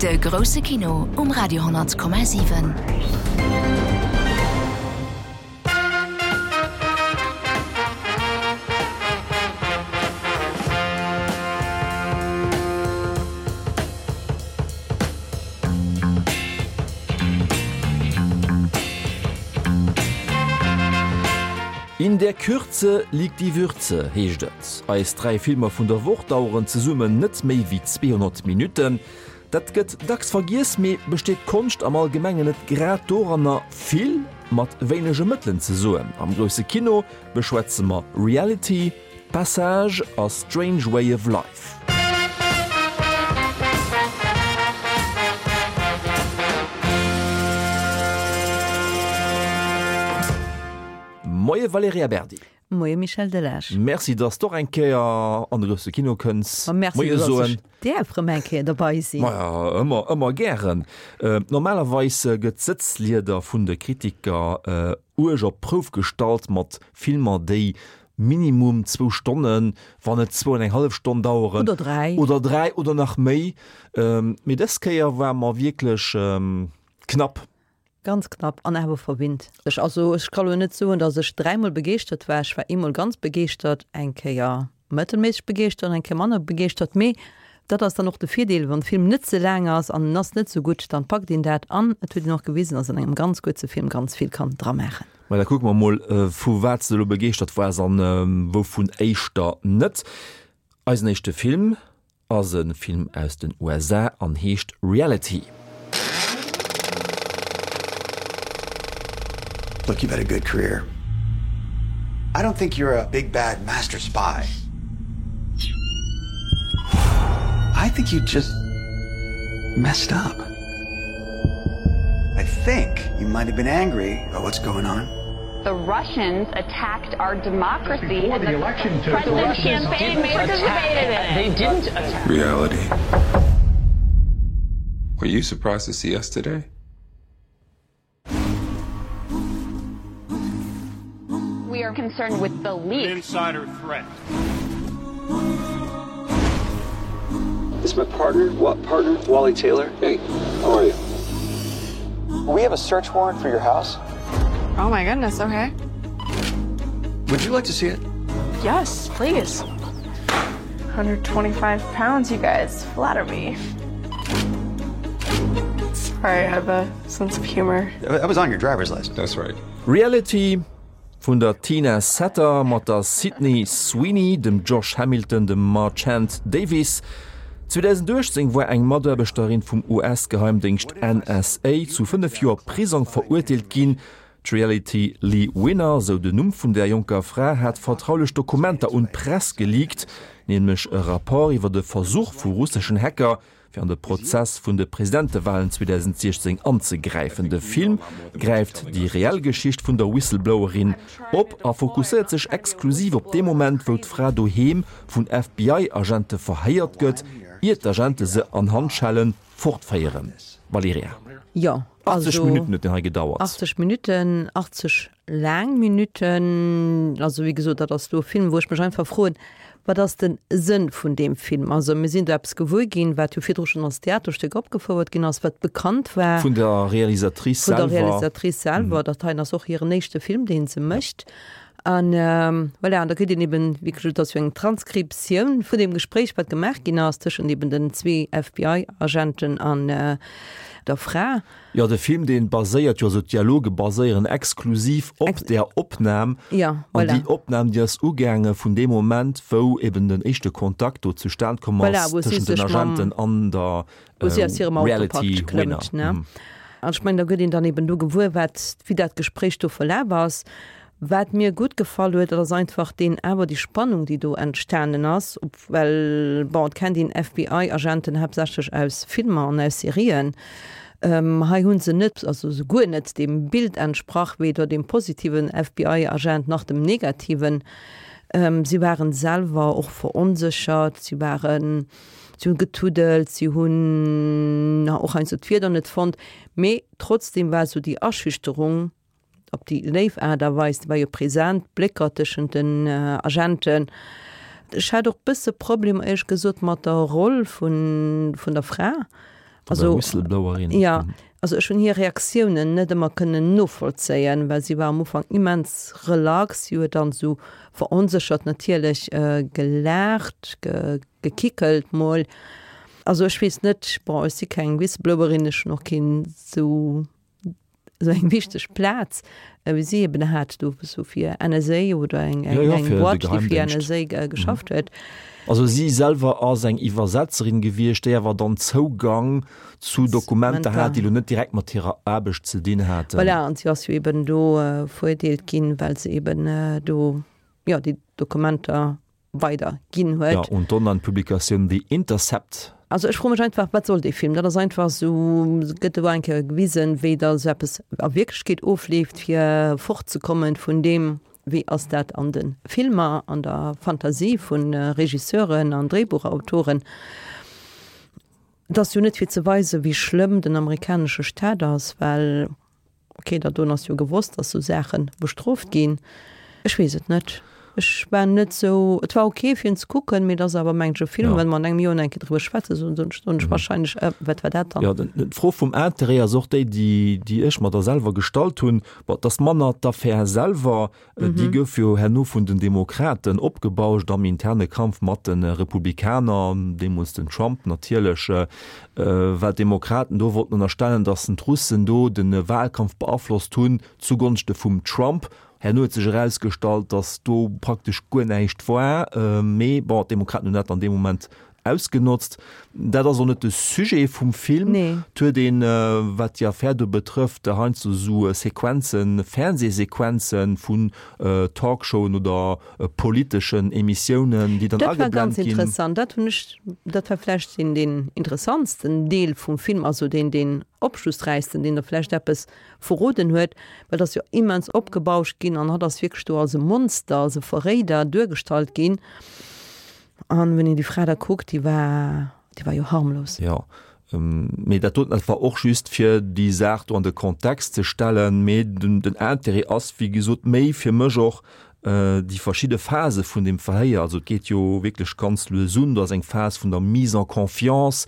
De grousse Kino um Radio 10,7. In der Kürze liegt die Würze, heescht et. Eis 3 Filmer vun der Woch daueren zesummen net méi wéi 200 Minutten. Dat gëtt dacks vergiess, mee besteet d'Konscht am Allgemengen net grad doranner, vill mat wéinege Mëttelen ze soen? Am grousse Kino beschwätze mer Reality, Passage a Strange Way of Life. Moie Valerija Berdi. Moie Michel Delage. Merci, dass s d'och eng Kéier an de grousse Kino kënns. Ma merci, Moie dass soen. ech däerf rëm eng Kéier derbei sinn. Maja, ëmmer, ëmmer gären. Normalerweis gëtt d'Sëtzlieder vun de Kritiker uerg op d'Prouf gestallt mat Filmer, déi Minimum zwou Stonnen, wann net zwou an eng hallef Stonn daueren. Oder dräi. Oder dräi oder nach méi. Mee dës Kéier war mer wierklech knapp. Ganz knapp an awer verwinnt. Ech, also ech ka lo net soen, datt ech dräimol begeeschtert war. Ech war eemol ganz begeeschtert, eng Kéier mëttelméisseg begeeschtert an eng Kéier manner begeeschtert. Mee dat ass dann och de Virdeel, wann de Film net ze laang ass an en ass net sou gutt, dann packt een dat an et huet een och gewisen, datt an engem ganz kuerze Film ganz vill kann dramaachen. Mä da kucke mer mol, vu wat s de elo begeeschtert waars an wouvun éischter net. Eisen éischte Film ass e Film aus den USA an heescht Reality. Look, you've had a good career. I don't think you're a big bad master spy. I think you just messed up. I think you might have been angry about what's going on. The Russians attacked our democracy before the, the election took the Russians campaign didn't participated attack. in it. They didn't attack. Reality. Were you surprised to see us today? We are concerned with the leak. An insider threat. This is my partner, what partner, Wally Taylor. Hey, how are you? We have a search warrant for your house. Oh my goodness, okay. Would you like to see it? Yes, please. 125 pounds, you guys. Flatter me. Sorry, I have a sense of humor. That was on your driver's license. That's right. Reality vun der Tina Satter mat der Sydney Sweeney, dem Josh Hamilton, dem Marchant Davis. 2018 war eng Mataarbechterin vum US-Geheimdéngscht NSA zu 5 Joer Prisong verurteelt ginn. D'Reality Lee Winner, sou den Numm vun där jonker Fra, hat vertraulech Dokumenter un d'Press geleakt, nämlech e Rapport iwwer e Versuch vu russeschen Hacker, fir an de Prozess vun de Presidentewalen 2016 anzegräifen. De Film gräift déi reell Geschicht vun der Whistleblowerin op a fokusséiert sech exklusiv op dee Moment, wou d'Fra doheem vun FBI-Agente verhéiert gëtt, ier d'Agente se an Handschelle fortféieren. Valerija. Jo, 80 also Minutten huet deen hei gedauert. 80 Minutten, 80 laang Minutten. Also wéi gesot, dat ass do e Film, wou ech mech einfach froen, Wat ass de Sënn vun deem Film? Also mir sinn do eppes gewuer ginn, wat jo virdru schonn als Theaterstéck opgefouert ginn ass, wat bekannt war. Vun der Realisatrice Vun der selwer. Realisatrice selwer. Dat heien ass och hiren éischte Film, dee se mécht. An voilà, an da kritt een eben, wéi gesot, et ass jo eng Transkriptioun vun deem Gespréich, wat gemaach ginn ass tëschent eben den zwee FBI-Agenten an der Fra. Jo, de Film dee baséiert jo, also d'Dialoge baséieren exklusiv op där Opnam. Ja, An voilà. déi Opnam, déi ass ugaange vun deem Moment, wou eben den éischte Kontakt do zustan komm Voilà, ass wou si tëschent den sech mam, Agenten an der wou si aus hirem Auto Reality praktesch Winner. klëmmt, ne? An ech mengen, da gëtt een dann eben do gewuer, wat, wéi dat Gespréich do verlaf ass. Wat mir gutt gefall huet, dat ass einfach deen, awer déi Spannung, déi do entstanen ass, ob, well, bon, et kennt een FBI-Agenten haaptsächlech aus Filmer an aus Serien. Hei hu se net, also souguer net deem Bild entsprach, weder deem positiven FBI-Agent nach dem negativen. Si waren selwer och veronséchert, si waren, si hunn getuddelt, si hunn och heiansdo d'Wierder net fonnt, mee trotzdem war esou déi Aschüchterung, Op déi léif Aart a Weis, déi war jo present, d'Blécker tëschent den Agenten. Ech hat och bësse Problemer éierlech gesot mat der Roll vun, vun der Fra. Also, Whistleblowerin. Ja, also ech hunn hir Reaktiounen net ëmmer kënnen novollzéien, well si war am Ufank immens relax, si huet dann esou veronséchert natierlech gelaacht, gekickelt mol. Also ech weess net, bon ech si keng Whistleblowerin, ech hunn och keen esou esou eng wichteg Plaz wéi si eben hat do sou fir NSA oder eng eng Ja, ja, eng fir de Boîte, déi fir Geheimdéngscht. NSA geschafft huet. Also si selwer ass eng Iwwersetzerin gewiescht, déi awer dann Zougang zu Dokumenter hat, déi elo net direkt mat hirer Aarbecht ze dinn haten. Voilà, an si ass jo eben do veruerteelt ginn, well se eben do, jo, déi Dokumenter weider ginn huet. Ja, und d'Online-Publikatioun The Intercept. Also ech froe mech einfach, wat soll dee Film? Dat ass einfach esou, gëtt do eng Kéier gewisen, wéi da sou eppes a Wierklechkeet ofleeft, fir fortzekommen vun deem, wéi ass dat an de Filmer, an der Fantasie vu Regisseuren an Dréibuchautoren. Et ass jo net fir ze weisen, wéi schlëmm den amerikanesche Staat ass, well Ok, dat doen ass jo gewosst, dass sou Saachen bestrooft ginn. Ech weess et net. Ech war net sou, et war ok fir en ze kucken, mee et ass awer mengen ech e Film, well mer an engem Joer nach eng Kéier driwwer schwätzen, soen soen ech wahrscheinlech, äh, wat war dat dann? Jo, d'Fro vum Interêt ass och déi, déi, déi ech mer da selwer gestallt hunn. Bon, et ass manner d'Affär selwer, Déi gouf jo herno vun den Demokraten opgebauscht am interne Kampf mat de Republikaner, deemools den Trump natierlech, well d'Demokraten do wollten ënnerstellen, datt d'Russen do de Wahlkampf beaflosst hunn zugonschte vum Trump. Herno huet sech erausgestallt, datt do praktesch guer näischt war, mee bon, d'Demokraten hunn dat an deem Moment Ausgenotzt. Dat ass och net de Sujet vum Film. Et huet een, wat déi Affär do betrëfft, heiansdo esou Sequenzen, Fernsehsequenzen vun Talkshowen oder politeschen Emissiounen, déi dann Dat war ageblennt ganz ginn. interessant. Dat hunn ech, dat war vläicht deen, deen interessantsten Deel vum Film, also deen, deen opschlussräichsten, deen der vläicht eppes verroden huet, well et ass jo immens opgebauscht ginn an hatt ass wierklech do als e Monster, als e Verréider duergestallt ginn. An wenn een déi Fra da kuckt, déi war, déi war jo harmlos. Jo, mee dat doten, dat war och just fir déi Saach do an de Kontext ze stellen. Mee den Intérêt ass, wéi gesot, méi fir mech och déi verschidde Phase vun deem Verhéier. Also et geet jo wierklech ganz lues un. Do ass eng Phas vun der Mise en confiance,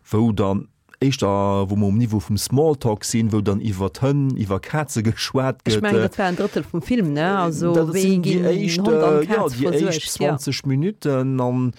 wou dann éischter wou mer um Niveau vum Smalltalk sinn, wou dann iwwer Hënn, iwwer Kaze geschwat gëtt. Ech mengen, dat war en Drëttel vum Film, ne? Also Dat wéi sinn déi ginn éischt, Hond an jo, Kaz déi éischt versuergt, jo. 20 Minutten an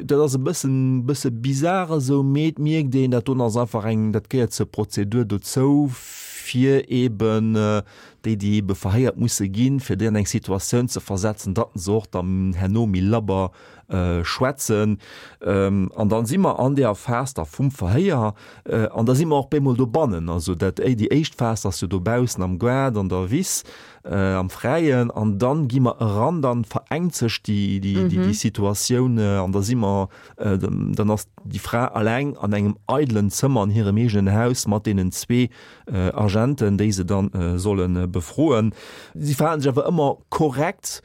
dat ass e bëssen, bësse bizar esou, mee et mierkt een, dat doen ass einfach eng, dat gehéiert zur Prozedur dozou, fir eben déi, déi ebe verhéiert musse ginn, fir déi an eng Situatioun ze versetzen, datt se och dann herno méi labber schwätzen. An dann si mer an deeër Phas da vum Verhéier an da si mer och bemol dobannen. Also dat, déi éischt Phas ass jo dobaussen am Gaart, an der Wiss, am Fräien an dann gi mer eran, dann verengt sech déi, déi, déi Situatioun an da si mer, dann ass déi Fra alleng an engem eidelen Zëmmer an hirem eegenen Haus mat deenen zwee Agenten, déi se dann solle befroen. Si verhalen sech awer ëmmer korrekt.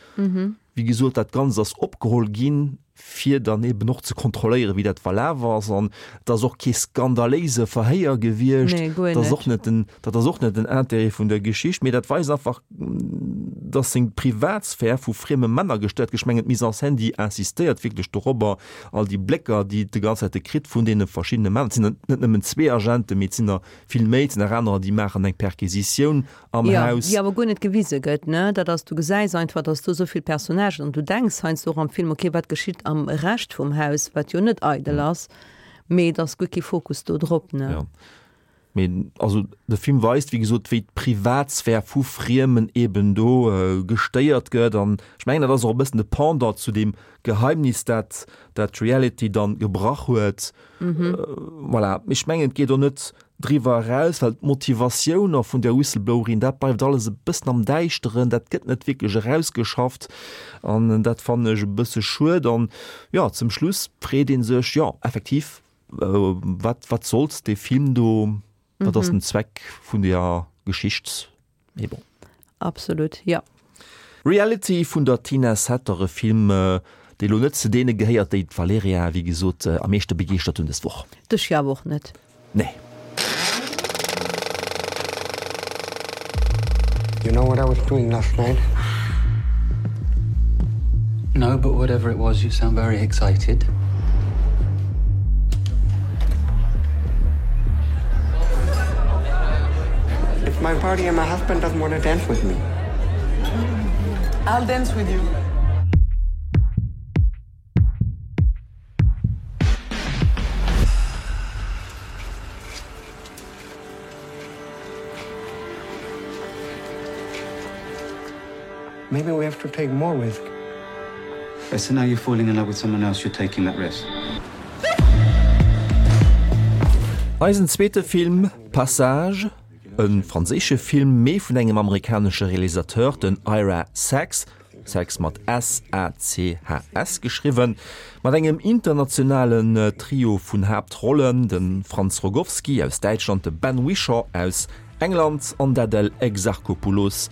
Wéi gesot, dat Ganzt ass opgeholl ginn, fir dann eben och ze kontrolléieren, wéi dat verlaf ass. An et ass och kee skandaléise Verhéier gewiescht. Nee, guer Dat ass net. och net den, dat ass och net den Intérêt vun der Geschicht. Mee dat weist einfach, dass seng Privatsphär vu frieme Männer gestéiert gëtt. Ech mengen, d'Mise en scène, déi insistéiert wierklech dorobber, all déi Blécker, déi et de ganz Zäite kritt vun deene verschiddene Männer. Et sinn net nëmmen zwee Agenten, mee et sinn der vill méi. Et sinn nach anerer, déi maachen eng Perquisitioun am Jo, Haus. déi awer guer net gewise gëtt, ne? Dat ass, du gesäis einfach, dass do esou vill Personnagen an du denks heiansdo och am Film, okay, wat geschitt am Rescht vum Haus, wat jo net eidel ass, mee et ass guer kee Fokus do drop, ne? Jo, mee also de Film weist, wéi gesot, wéi d'Privatsphär vu Friemen eben do gestéiert gëtt an ech mengen, dat ass och e bëssen de Pendant zu deem Geheimnis, dat dat d'Reality dann gebrach huet. Voilà, ech mengen, et geet och net driwwer eraus, well d'Motivatioun och vun där Whistleblowerin, dat bleift alles e bëssen am Däischteren, dat gëtt net wierklech erausgeschafft an dat fannen ech e bësse schued. An jo, zum Schluss freet ee sech, jo effektiv, wat, wat sollt dee Film do, wat ass den Zweck vun deeër Geschicht? Mee bon. Absolut, jo. Reality vun der Tina Satter, e Film, dee lo net zu deene gehéiert, déi d'Valerija, wéi gesot, am meeschte begeeschtert hunn dës Woch. Dech jo awer och net. Nee. You know what I was doing last night? No, but whatever it was, you sound very excited. party and my husband doesn't want to dance with me. I'll dance with you. Maybe we have to take more risk. So now you're falling in love with someone else, you're taking that risk. Eisen zweete Film, Passage, e franséische Film, mee vun engem amerikanesche Realisateur, den Ira Sachs, Sachs mat S-A-C-H-S geschriwwen, mat engem internationalen Trio vun Haaptrollen, de Franz Rogowski aus Däitschland, de Ben Whishaw aus England an d'Adèle Exarchopoulos,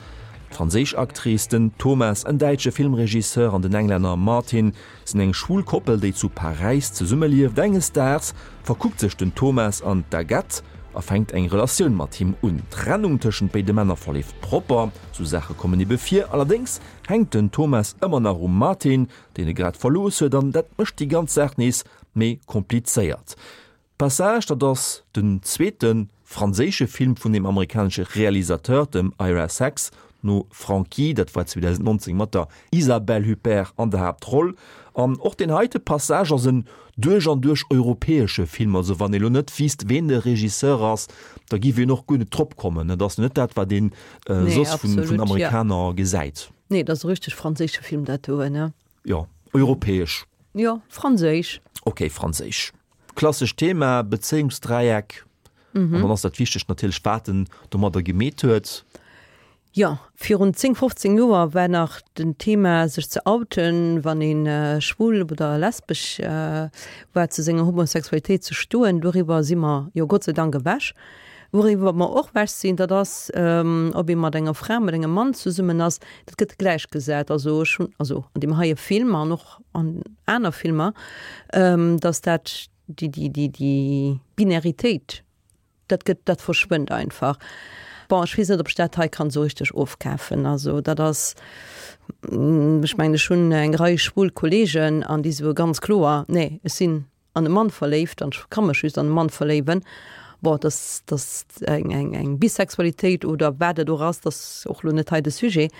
d'franséisch Actrice, den Thomas, en däitsche Filmregisseur an den Englänner Martin sinn eng schwul Koppel, déi zu Paräis zesummelieft. Enges Daags verkuckt sech den Thomas an d'Agathe a fänkt eng Relatioun mat him un. D'Trennung tëschent béide Männer verleeft propper, sou Saache kommen ebe vir. Allerdéngs hänkt den Thomas ëmmer nach um Martin, deen e grad verlooss huet, an dat mécht déi ganz Saach nees méi komplizéiert. Passage, dat ass den zweete franséische Film vun dem amerikanesche Realisateur, dem Ira Sachs, no Frankie, dat war 2019 mat der Isabelle Huppert an der Haaptroll. An och deen heite Passage ass en duerch an duerch europäesche Film, also wann ee lo net wiisst, ween de Regisseur ass, da giff een och guer net drop kommen. Et ass net dat, wat een soss vun Amerikaner gesäit. Nee, et ass e richteg franséische Film dat doen, ne? Jo, europäesch. Jo, franséisch. Ok, franséisch. Klassescht Thema, Bezéiungsdräieck. Mhm. An dann ass dat Wichtegt natierlech, wat en domadder gemeet huet. Jo, virun 10, 15 Joer war nach den Thema sech ze outen, wann ee schwul oder lesbesch war, zu senger Homosexualitéit ze stoen. Doriwwer si mer jo Gott sei Dank ewech. Wouriwwer mer och ewech sinn, dat ass, ob ee mat enger Fra, mat engem Mann zesummen ass, dat gëtt gläichgesat. Also ech hunn, also an deem heie Film an och an aner Filmer, datt dat déi, déi, déi, déi Binäritéit, dat gëtt, dat verschwënnt einfach. Bon, ech weess net, ob ech dat hei kann esou richteg ofkafen. Also dat ass, ech mengen, ech hunn eng Rei schwul Kollegen an déi soe ganz kloer, nee, ech sinn an e Mann verléift an ech ka mech just an e Mann verléiwen. Bon, dass dass eng eng eng Bisexualitéit oder wat et och ass, dat ass och lo net hei de Sujet.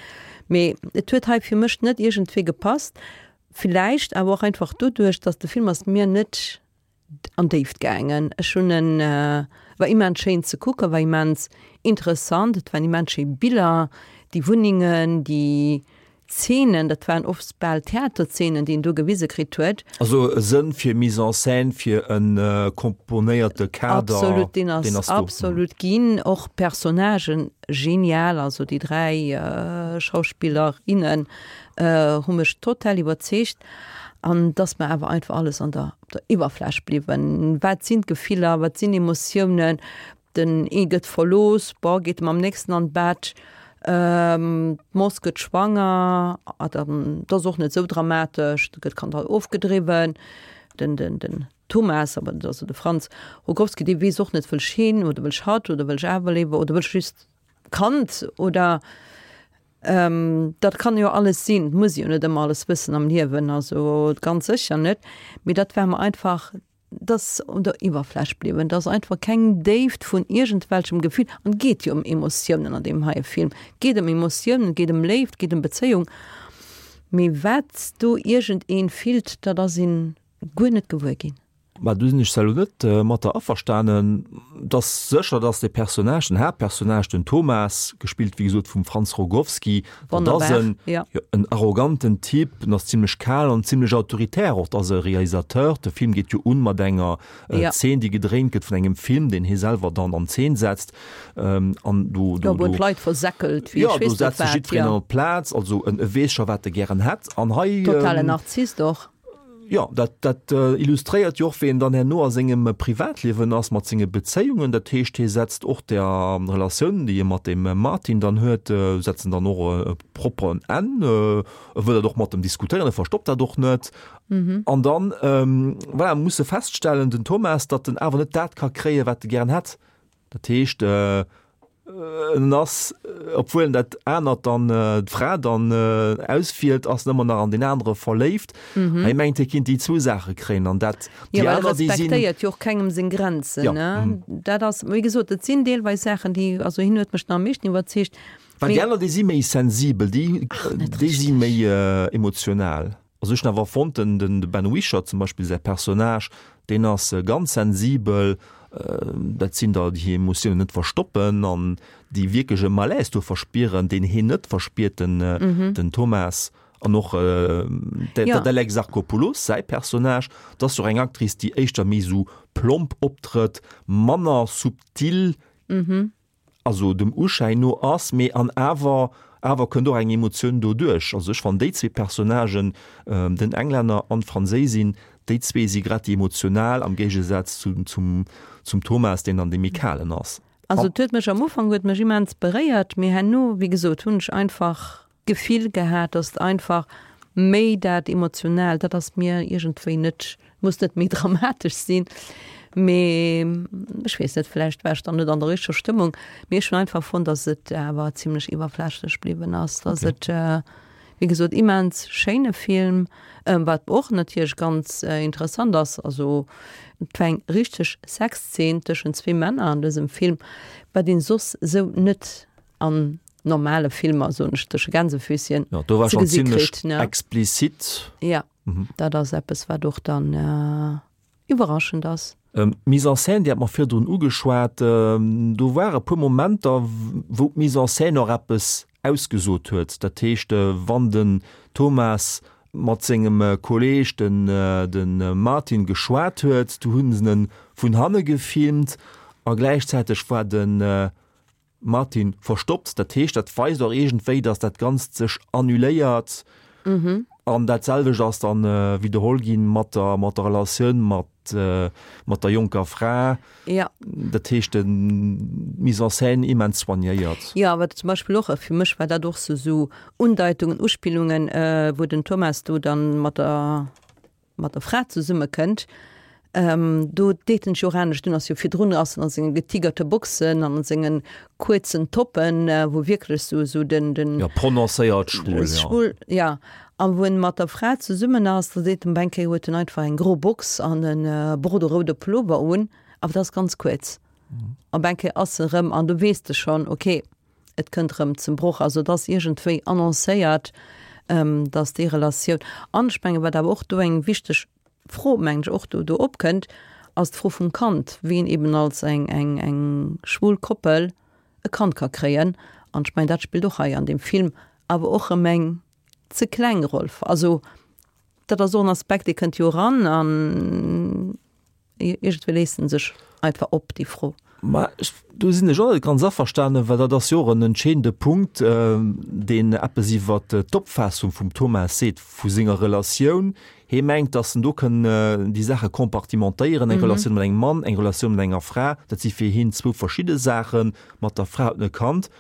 Mee et huet hei fir mech net iergendwéi gepasst. Villäicht awer och einfach doduerch, dass de Film ass mir net an d'Déift gaangen. Ech hunn en, war immens schéin ze kucken, war immens interessant, et waren immens schéi Biller, déi Wunnengen, déi Zeenen, dat waren oft bal Theaterzeenen, déi een do gewise kritt huet. Also e Sënn fir Mise en scène, fir e komponéierte Kader, Absolut, deen ass absolut ginn. Och d'Personnagen genial, also déi 3 Schauspiller, innen hu mech total iwwerzeegt. An et ass mer awer einfach alles an der op der Iwwerfläch bliwwen. Wat sinn d'Gefiller, wat sinn Emotiounen? Den ee gëtt verlooss, bon, geet mam nächsten an d'Bett, d'Moss gëtt schwanger, a dann, dat ass och net esou dramatesch, da gëtt d'Kand halt ofgedriwwen. Den, den, den Thomas, awer dat ass jo de Franz Rogowski, dee weess och net, wëll ech heen oder wëll ech hatt oder wëll ech awer léiwer oder wëll ech just d'Kand oder dat kann jo alles sinn, et muss ee jo net ëmmer alles wëssen am Liewen, also ganz sécher net, mee dat war mer einfach Et ass un der Iwwerfläch bliwwen. Et ass einfach keng Déift vun iergendwelchem Gefill. An et geet jo ëm Emotiounen an deem heie Film. Et geet ëm Emotiounen, et geet ëm Léift, et geet ëm Bezéiung. Mee wat do iergendee fillt, dat ass een guer net gewuer ginn. Mä do sinn ech zwar elo net mat der averstanen. Et ass sécher, dass de Personnage, den Haaptpersonnage, den Thomas, gespillt wéi gesot vum Franz Rogowski, Dat ass en, ja. en arroganten Typ, en ass zimmlech kal an zimmlech autoritär och. Dat ass e Realisateur. De Film geet jo un mat enger äh, ja. Zeen, déi gedréint gëtt vun engem Film, deen hie selwer dann an Zeen setzt. Ähm, an do, do, ja, do, d'Leit versäckelt, wéi ja, do setzt sech jiddwereen ja. an d'Plaz, also en, e weess scho, wat e gären hätt. An hei. Totalen ähm, Narzisst och. Jo, dat, dat illustréiert jo och, wéi en dann herno a sengem Privatliewen ass, mat senge Bezéiungen. Dat heescht, hie setzt och der Relatioun, déi e mat dem Martin dann huet, setzt en dann och e propperen Enn. E wëll dat och mat em diskutéieren, e verstoppt dat och net. An dann, voilà, muss e feststellen, den Thomas, datt en awer net dat ka kréien, wat e gären hätt. Dat heescht. En ass, obwuel en dat anert dann, d'Fra dann auswielt, ass en ëmmer nach an deen anere verléift. Mm. Hie mengt, hie kinnt déi zwou Saache kréien an dat, déi aner, déi sinn. Jo, respektéiert jo och kengem seng Grenzen, ne? Dat ass, wéi gesot, et sinn deelweis Saachen, déi, also hien huet mech nach am meeschten iwwerzeegt. Well déi aner, déi si méi sensibel, déi, déi si méi emotional. Also ech hunn awer fonnt, den den Ben Whishaw zum Beispill säi Personnage, deen ass ganz sensibel, dat sinn der, déi hir Emotiounen net verstoppen an déi wierklech e Malaise do verspieren, deen heen net verspiert, den den Thomas. An och d'Adèle Exarchopoulos säi Personnage, dat ass jo och eng Actrice, déi éischter méi esou plomp optrëtt, manner subtil, also dem Uschäin no ass, mee an awer awer kënnt och eng Emotioun doduerch. Also ech fannen déi zwee Personnagen, den Englänner an d'Franséisin, déi zwee si grad déi emotional am Géigesaz zu zum zum Thomas, deen dann dee méi kalen ass. Also et huet mech am Ufank huet mech immens beréiert, mee herno, wéi gesot, hunn ech einfach d'Gefill gehat, dass et einfach méi dat Emotionaalt, dat ass mir iergendwéi net, muss net méi dramatesch sinn, mee ech weess net, vläicht war ech dann net an der richteger Stëmmung, mee ech hunn einfach fonnt, dass et awer zimlech iwwerflächlech bliwwen ass, dass et, wéi gesot, immens schéine Film, wat och natierlech ganz interessant ass, also et war eng richteg Sexzeen tëschent zwee Männer an dësem Film, wat een soss esou net an normale Filmer, soen ech tësche Gänsefüßchen, Ja, do war schon ziemlech kritt, ne? explizit. Ja, mhm. dat ass eppes, wat och dann äh, iwwerraschend ass. Ähm, Mise en scène, déi hat mer virdrun ugeschwat, ähm, do war e puer Momenter, wou d'Mise en scène och eppes ausgesot huet. Dat heescht, äh, wann den Thomas mat sengem äh, Kolleg, den, äh, den äh, Martin, geschwat huet, du hunn se en vun hanne gefilmt a gläichzäiteg war den äh, Martin, verstoppt. Dat heescht, dat weist och iergendwéi, datt dat Ganzt sech annuléiert. An dat selwecht ass dann widderholl ginn mat der, mat der Relatioun mat, mat der jonker Fra. Ja. Dat heescht, d'Mise en scène immens soignéiert. Jo, wat zum Beispill och, fir mech war dat och sou, sou Undeitungen, Uspillungen, wou den Thomas do dann mat der, mat der Fra zesumme kënnt, do deet en sech jo och anescht un, ass jo virdrun ass en a senge getigerte Boxen an a sengen kuerzen Toppen, wou wierklech sou sou den den Jo, prononcéiert schwul, jo. Schwul, ja. A wou en mat der Fra zesummen ass, da seet en op eng Kéier huet en einfach eng gro Box an e borderoude Pullover un, awer dat ass ganz kuerz. Op eng Kéier ass e rëm, an du weess de schonn, okay, Et kënnt erëm zum Broch. Also et ass iergendwéi annoncéiert, datt déi Relatioun, an ech mengen, wat awer och do eng wichteg Fro, mengen ech, och do do opkënnt, ass d'Fro vum Kand, wien eben als eng eng eng schwul Koppel e Kand ka kréien. An ech mengen, dat spillt och hei an deem Film awer och erëm eng ze kleng Roll. Also dat ass och en Aspekt, dee kënnt jo eran an Iergendwéi léisst en sech einfach op, déi Fro. Ma ech, do sinn ech och net ganz averstanen, well dat ass jo och en entscheedende Punkt, deen eppes iwwer d'Opfaassung vum Thomas seet, vu senger Relatioun. Hie mengt, datt en do kënn déi Saache compartimentéieren, eng Relatioun mat engem Mann, eng Relatioun mat enger Fra, dat si fir hien zwou verschidde Saachen. Mat der Fra huet en e Kand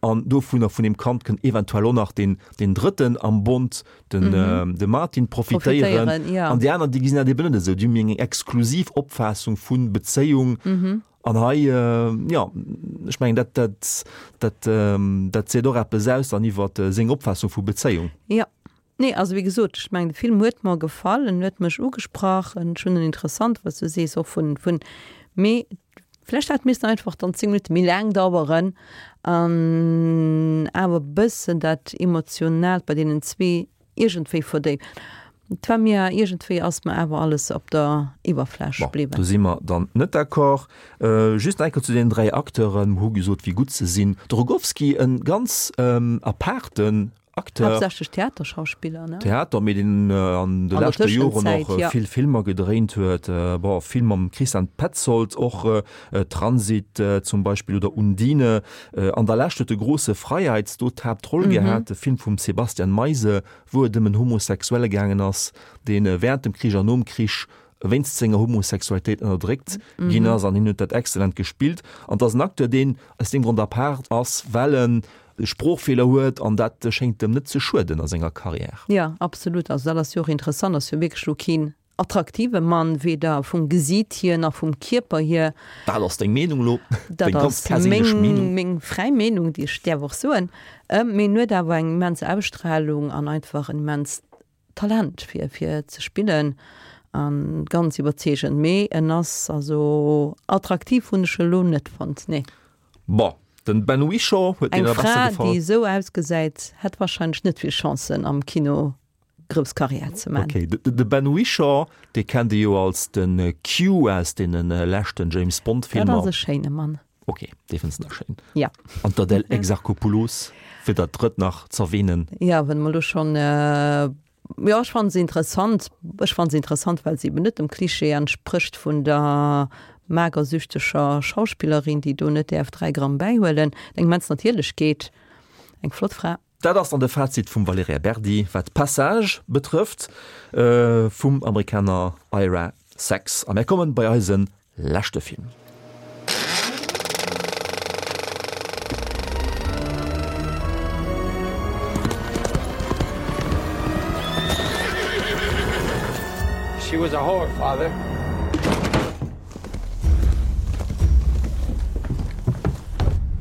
An dovunner, vun deem Kand, kënnt eventuell och nach deen, deen Drëtten am Bond, den, de Martin, profitéieren. Profitéieren, ja. An déi aner, déi gesinn dat eben net esou. Déi hunn méi eng exklusiv Opfaassung vu Bezéiung. An hei, jo, ech mengen, dat, dat, dat, dat seet och eppes aus dann iwwer seng Opfaassung vu Bezéiung. Jo. Nee, also wéi gesot, ech mengen, de Film huet mer gefall, en huet mech ugesprach, ech hunn en interessant, wat s du sees, och vun, vun, mee vlächtt hätt missten einfach dann 10 Minutte méi laang daueren an awer e bëssen dat Emotionaalt bei deenen zwee iergendwéi verdéiwen. Et war mir iergendwéi ass mer awer alles op der Iwwerfläch Bon, bliwwen. do si mer dann net d'accord. Just nach eng Kéier zu deenen 3 Acteuren, mer hu gesot, wéi gutt se sinn. De Rogowski, e ganz apaarten Acteur. Haaptsächlech Theaterschauspiller, ne? Theater, mee deen an de leschte Joren och vill Filmer gedréint huet. Bon, vill mam Christian Petzold, och Transit zum Beispill oder Undine. An der Lescht huet de Große Freiheit do d'Haaptroll gehat, de Film vum Sebastian Meise, wou et ëm en Homosexuelle gaangen ass, dee wärend dem Krich an nom Krich wéinst senger Homosexualitéit ënnerdréckt ginn ass. An hien huet dat exzellent gespillt. An et ass en Acteur, deen aus deem Grond apaart ass, well en Sproochfeeler huet an dat schéngt em net ze schueden a senger Carrière. Jo, absolut. Also dat ass jo och interessant, ass jo wierklech elo keen. attraktive Mann, weder vum Gesiit hier nach vum Kierper hier. Dat ass deng Meenung elo, deng ganz perséinlech Meenung. Meng fräi Meenung, déi ech däerf och soen. Mee en huet awer eng immens Ausstrahlung an einfach en immenst Talent fir fir ze spillen an ganz iwwerzeegend. Mee en ass also attraktiv hunn ech elo net fonnt, nee. Bon, den Ben Whishaw huet dir nach besser gefall. Eng Fra déi esou ausgesäit hätt wahrscheinlech net vill Chancen am Kino grouss Karriär ze man. Ok, de Ben Whishaw, dee kennt ee jo als de Q aus deene leschten James Bond Filmer. Dat ass e schéine Mann. Ok, dee fënns de nach schéin. Ja. An d'Adèle Exarchopoulos, fir dat drëtt nach z'erwähnen. Ja, wann mer elo schonn, jo, ech fannen se interessant. Ech fannen se interessant, well se eben net dem Klischee entsprécht vun der magersüchteger Schauspillerin, déi do net däerf 3 Gramm bäihuelen. Eng immens Natierlechkeet, eng flott Fra. Dat ass dann de Fazit vum Valerija Berdi, wat Passage betrëfft, vum Amerikaner Ira Sachs. A mär kommen bei eise leschte Film. She was a whore, father.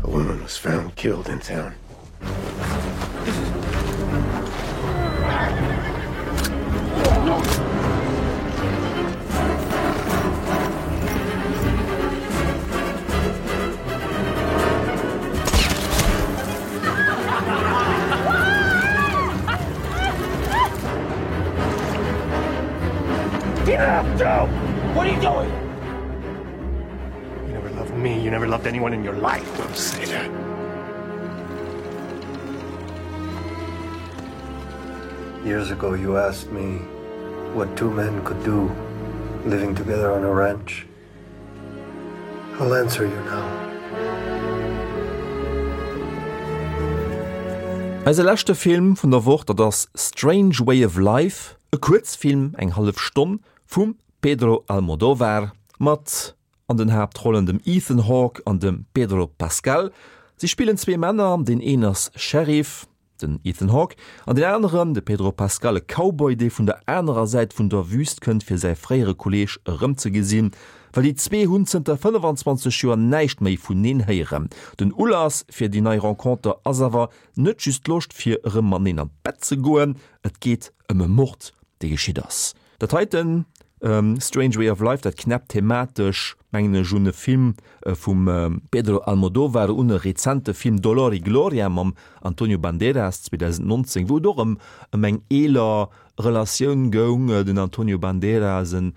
A woman was found killed in town. Joe! What are you doing? You never loved me. You never loved anyone in your life. Don't say that. Years ago, you asked me what two men could do living together on a ranch. I'll answer you now. Eise leschte Film vun der Woch, dat ass Strange Way of Life, e Kuerzfilm, eng hallef Stonn, vum Pedro Almodovar mat an den Haaptrollen dem Ethan Hawke an dem Pedro Pascal. Si spillen zwee Männer, deen een ass Sheriff, den Ethan Hawke, an deen aneren, de Pedro Pascal, e Cowboy, dee vun der anerer Säit vun der Wüst kënnt, fir säi fréiere Kolleeg erëmzegesinn, well déi zwee hunn zënter 25 Joer näischt méi vuneen héieren. Den Ulass fir déi nei Renconter ass awer net just d'Loscht, fir erëm mateneen an d'Bett ze goen, et geet ëm e Mord, dee geschitt ass. Dat heiten, Strange Way of Life, dat knäppt thematesch, mengen ech, un e Film vum Pedro Almodovar, un e rezente Film Dolor y Gloria mam Antonio Banderas 2019, wou et och ëm ëm eng eeler Relatioun goung. Den Antonio Banderas, en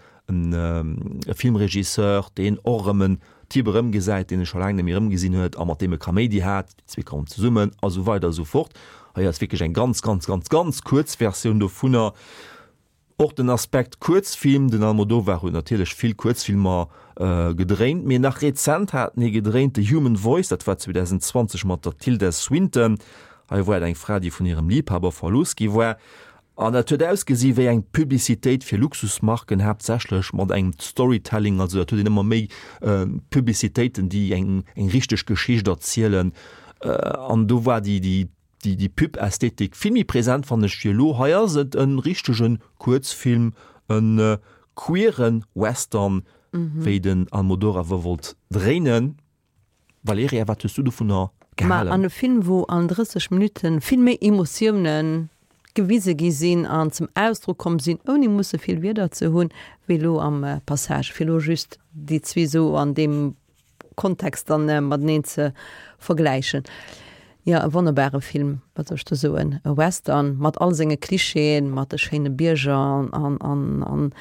e Filmregisseur, deen och erëm en Typ erëmgesäit, deen e scho laang net méi erëmgesinn huet a mat deem e Kaméidi hat. Déi zwee kommen zesummen a sou weider a sou fort. Hei ass wierklech eng ganz, ganz, ganz, ganz kuerz Versioun dovunner. Och den Aspekt Kuerzfilm, den Almodovar huet natierlech vill Kuerzfilmer gedréint, mee nach rezent hat en ee gedréint, The Human Voice, dat war 2020 mat der Tilda Swinton. Hei war et eng Fra, déi vun hirem Liebhaber verlooss gi war an dat huet ausgesi wéi eng Publicitéit fir Luxusmarken, haaptsächlech mat engem Storytelling, also dat huet een ëmmer méi Publicitéiten, déi eng richteg Geschicht erzielen an do war déi déi Déi déi Pub-Ästhetik vill méi präsent fannen ech wéi elo. Hei ass et en richtegen Kuerzfilm, en queeren Western, wéi den Almodoraver wollt dréinen. Valerija, wat hues du dovunner Ma gehalen? an e Film wou an 30 Minutten vill méi Emotiounen gewise gi sinn an zum Ausdrock komm sinn, ouni musse vill Wierder ze hunn, wéi elo am Passage, fir elo just déi zwee sou an deem Kontext dann mateneen ze vergläichen. Jo, e wonnerbare Film, wat soll ech do soen, e Western mat all senge Klischeeën, mat de schéine Bierger an an an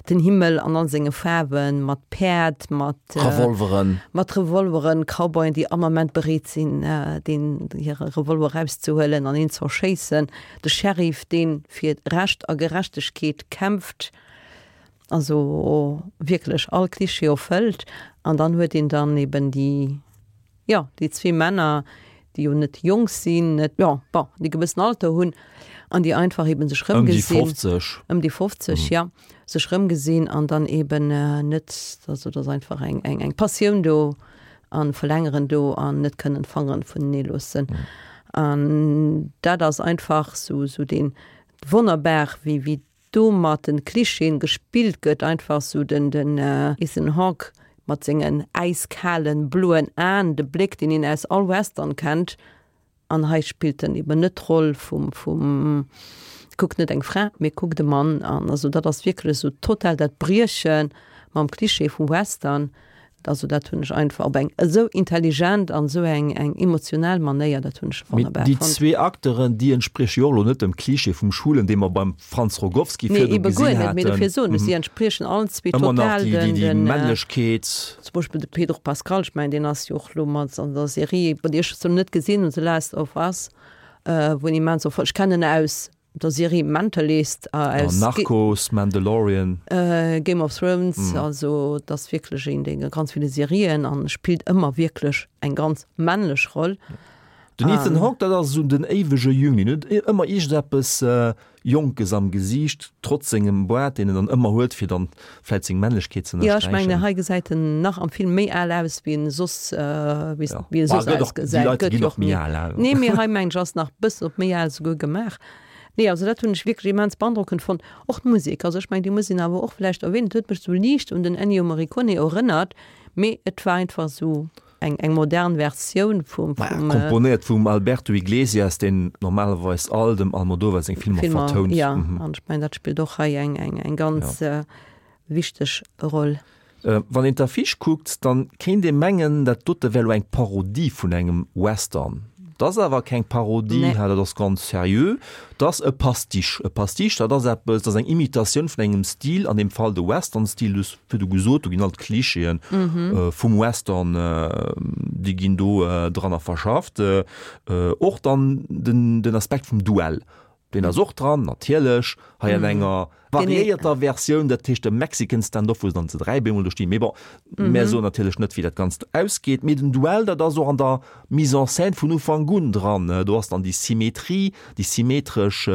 den Himmel an all senge Faarwen, mat Päerd, mat Revolveren, mat Revolveren, Cowboyen, déi all Moment bereet sinn, deen hire Revolver erauszehuelen an een z'erschéissen, de Sheriff, dee fir Recht a Gerechtegkeet kämpft. Also wierklech all Klischee erfëllt. An dann huet een dann eben déi, jo, déi zwee Männer, déi jo net jonk sinn, net, jo, bon, déi e gewëssen Alter hunn an déi einfach eben sech Ëm déi rëmgesinn. 50. Ëm déi 50, ja, sech rëmgesinn an dann eben net, also et ass einfach eng, eng, eng Passioun do an Verlängeren do an net kënnen d'Fangeren vunenee loossen. An dat ass einfach sou, sou deen wonnerbar, wéi, wéi. do mat den Klischeeën gespillt gëtt, einfach sou den den Ethan Hawke mat sengen äiskalen bloen Aen, de Bléck deen een aus all Western kennt, an hei spillt en eben net d'Roll vum vum kuckt net eng Fra, mee kuckt e Mann an also dat ass wierklech sou total dat Brieche mam Klischee vum Western. Also dat hunn ech einfach op eng esou intelligent an esou eng eng emotional Manéier, dat hunn ech wonnerbar fonnt. Déi zwee Acteuren, déi entsprieche jo och elo net dem Klischee vum Schwulen, dee mer beim Franz Rogowski virdu gesinn haten. Nee, ebe guer net, mee dofir soen ech, si entspriechen allen zwee total den. Ëmmer nach déi Männlechkeet. Zum Beispill de Pedro Pascal, ech mengen deen ass jo och elo mat an der Serie, bon déi ech zwar net gesinn hunn, The Last of Us, wou en immens, ech kennen en aus der Serie Mentalist aus Narcos, Mandalorian, Game of Thrones, also et ass wierklech een dee ganz ville Serien an spillt ëmmer wierklech eng ganz männlech Roll. Den Ethan Hawke, dat ass esou den éiwege Jüngling, huet ëmmer iergendeppes Jonkes am Gesiicht, trotz sengem Boart, deen en dann ëmmer huet, fir dann vläit seng Männlechkeet ze ënnersträichen. Jo, ech mengen, hei gesäit en nach am Film méi al aus, wéi en soss, wéi e soss ausgesäit. Déi Leit ginn och méi al, al. Nee, mee hei mengen ech ass nach bëssen op méi al souguer gemaach. Nee, also dat hunn ech wierklech immens beandrockend fonnt. Och d'Musek, also ech mengen, déi muss een awer och vläicht erwähnen. Et huet mech sou liicht un den Ennio Morricone erënnert, mee et war einfach sou eng, eng modern Versioun vum, vum. Komponéiert vum Alberto Iglesias, deen normalerweis all dem Almodovar seng Filmer vertount. Jo, an ech mengen, dat spillt och hei eng, eng, eng ganz wichteg Roll. Wann een d'Affiche kuckt, dann kéint ee mengen, dat dote wär lo eng Parodie vun engem Western. Dat ass awer keng Parodie, dat ass ganz seriö. Dat ass e Pastiche. E Pastiche, dat ass eppes, dat ass eng Imitatioun vun engem Stil, an deem Fall de Western-Stil. Du hues virdu gesot, do ginn all d'Klischeeën vum Western, déi ginn do dranner verschafft. Och dann den Aspekt vum Duell. Deen ass och dran, natierlech, hei an enger variéierter Versioun, dat heescht de Mexican Standoff, wou se dann zu 3 bemol do stinn. Mee bon, mär soen natierlech net, wéi dat Ganzt ausgeet. Mee den Duell, dat ass och an der Mise en scène vun Ufank un dran. Do ass dann déi Symmetrie, déi symmetresch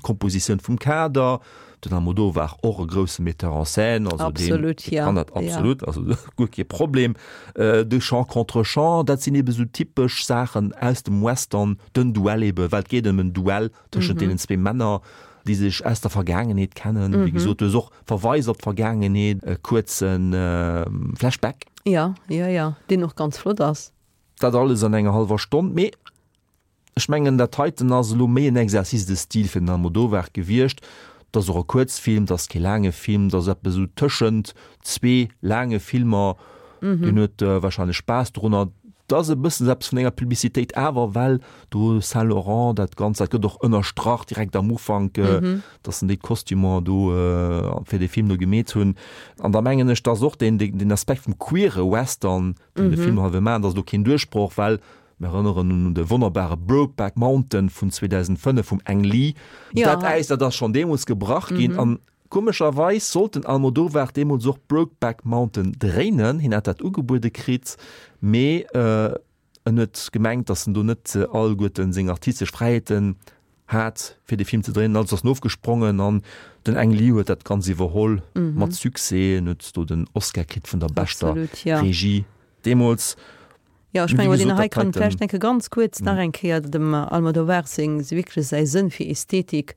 Kompositioun vum Kader. Den Almodovar, och e grousse Metteur en scène, also deen kann dat absolut, also guer kee Problem. De Chant contre Chant, dat sinn ebe sou typesch Saachen aus dem Western, den Duell ebe, well et geet ëm en Duell tëschent deenen zwee Männer, déi sech aus der Vergaangenheet kennen. Wéi gesot, du hues och Verweis op d'Vergaangenheet, e kuerze Flashback. Jo, jo, jo, deen och ganz flott ass. Dat alles an enger hallwer Stonn, mee Ech mengen, dat heiten ass elo méi en Exercice de style fir den Almodovar gewiescht. Et ass och e Kuerzfilm, et ass kee laange Film, et ass eppes esou tëschent zwee laange Filmer. Deen huet warscheinlech Spaass dorunner. Et ass e bëssen esou eppes vun enger Publicitéit awer, well do Saint Laurent dat Ganzt, dat gëtt och ënnerstrach direkt am Ufank, datt en déi Kostümer do fir dee Film do gemeet hunn. An da mengen ech, dass och deen, deen Aspekt vum queere Western, deen de Film hei wëll maachen, dat ass elo keen Duerchbroch, well Mir erënneren un de wonnerbare Brokeback Mountain vun 2005 vum Ang Lee. Dat Äis, dat ass schonn deemools gebrach ginn. An komescherweis sollt den Almodovar deemools och Brokeback Mountain dréinen. Hien hat dat ugebuede kritt, mee en huet gemengt, datt en do net alleguerten seng artistesch Fräiheeten hat fir de Film ze dréinen. Also ass en ofgesprongen an den Ang Lee huet dat Ganzt iwwerholl mat Succès. En huet do den Oscar kritt vun der beschter Regie deemools. Jo, ech mengen, deen hei kann vläicht enke ganz kuerz nach eng Kéier dem Almodovar seng, wierklech säi Sënn fir Ästhetik,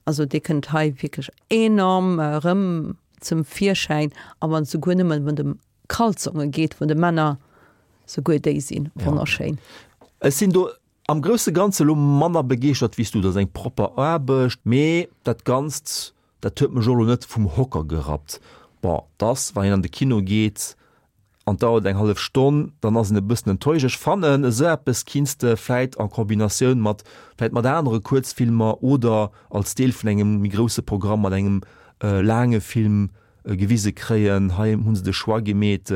also dee kënnt hei wierklech enorm erëm zum Virschäin, a wann et souguer nëmmen ëm de Kalzonge geet vun de Männer, souguer déi si wonnerschéin. Ech sinn do am grousse Ganze elo manner begeeschtert wéi s du. Dat ass eng propper Aarbecht, mee dat Ganzt, dat huet mech och elo net vum Hocker gerappt. Bon, 't ass, wann een an de Kino geet, an dauert eng hallef Stonn, dann ass een e bëssen enttäuscht. Ech fannen, esou eppes kinns de vläit en Kombinatioun mat vläit mat anere Kuerzfilmer oder als Deel vun engem méi grousse Programm mat engem laange Film gewise kréien. Hei hu se de Choix gemeet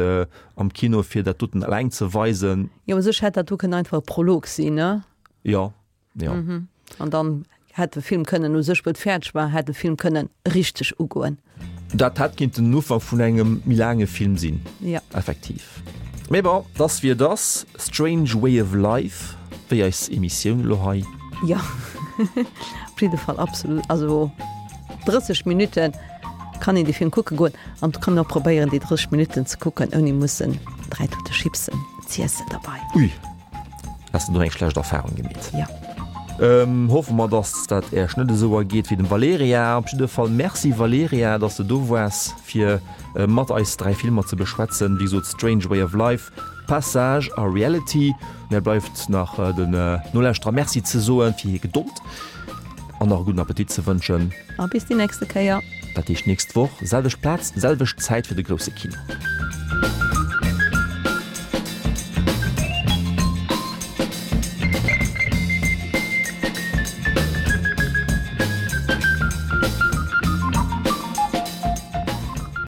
am Kino fir dat doten eleng ze weisen. Jo, u sech hätt dat do kënnen einfach e Prolog sinn, ne? Jo. Ja. Mhm. An dann hätt de Film kënnen u sech, wou et fäerdeg war, hätt de Film kënnen richteg ugoen. Dat hätt kinnten den Ufank vun engem méi laange Film sinn. Ja. Effektiv. Mee bon, 't ass wéi et ass. Strange Way of Life, wéi eis Emissioun elo hei. Jo, op jidde Fall absolut. Also 30 Minutten kann een dee Film kucke goen an et kann een och probéieren, déi 30 Minutten ze kucken, ouni mussen 3 Tute Chipsen z'iessen derbei. Ui. Has de do eng schlecht Erfahrung gemeet? Ja. Hoffe mer, dass dat Äech net esou ergeet wéi dem Valerija. Op jidde Fall Merci Valerija, dass de do waars fir mat eis 3 Filmer ze beschwätzen. Wéi gesot Strange Way of Life, Passage a Reality. Mär bleift nach den Nolauschterer Merci ze soen fir hir Gedold an nach e gudden Appetit ze wënschen. A bis déi nächste Kéier. Dat heescht nächst Woch, selwecht Plaz, selwecht Zäit fir de grousse Kino.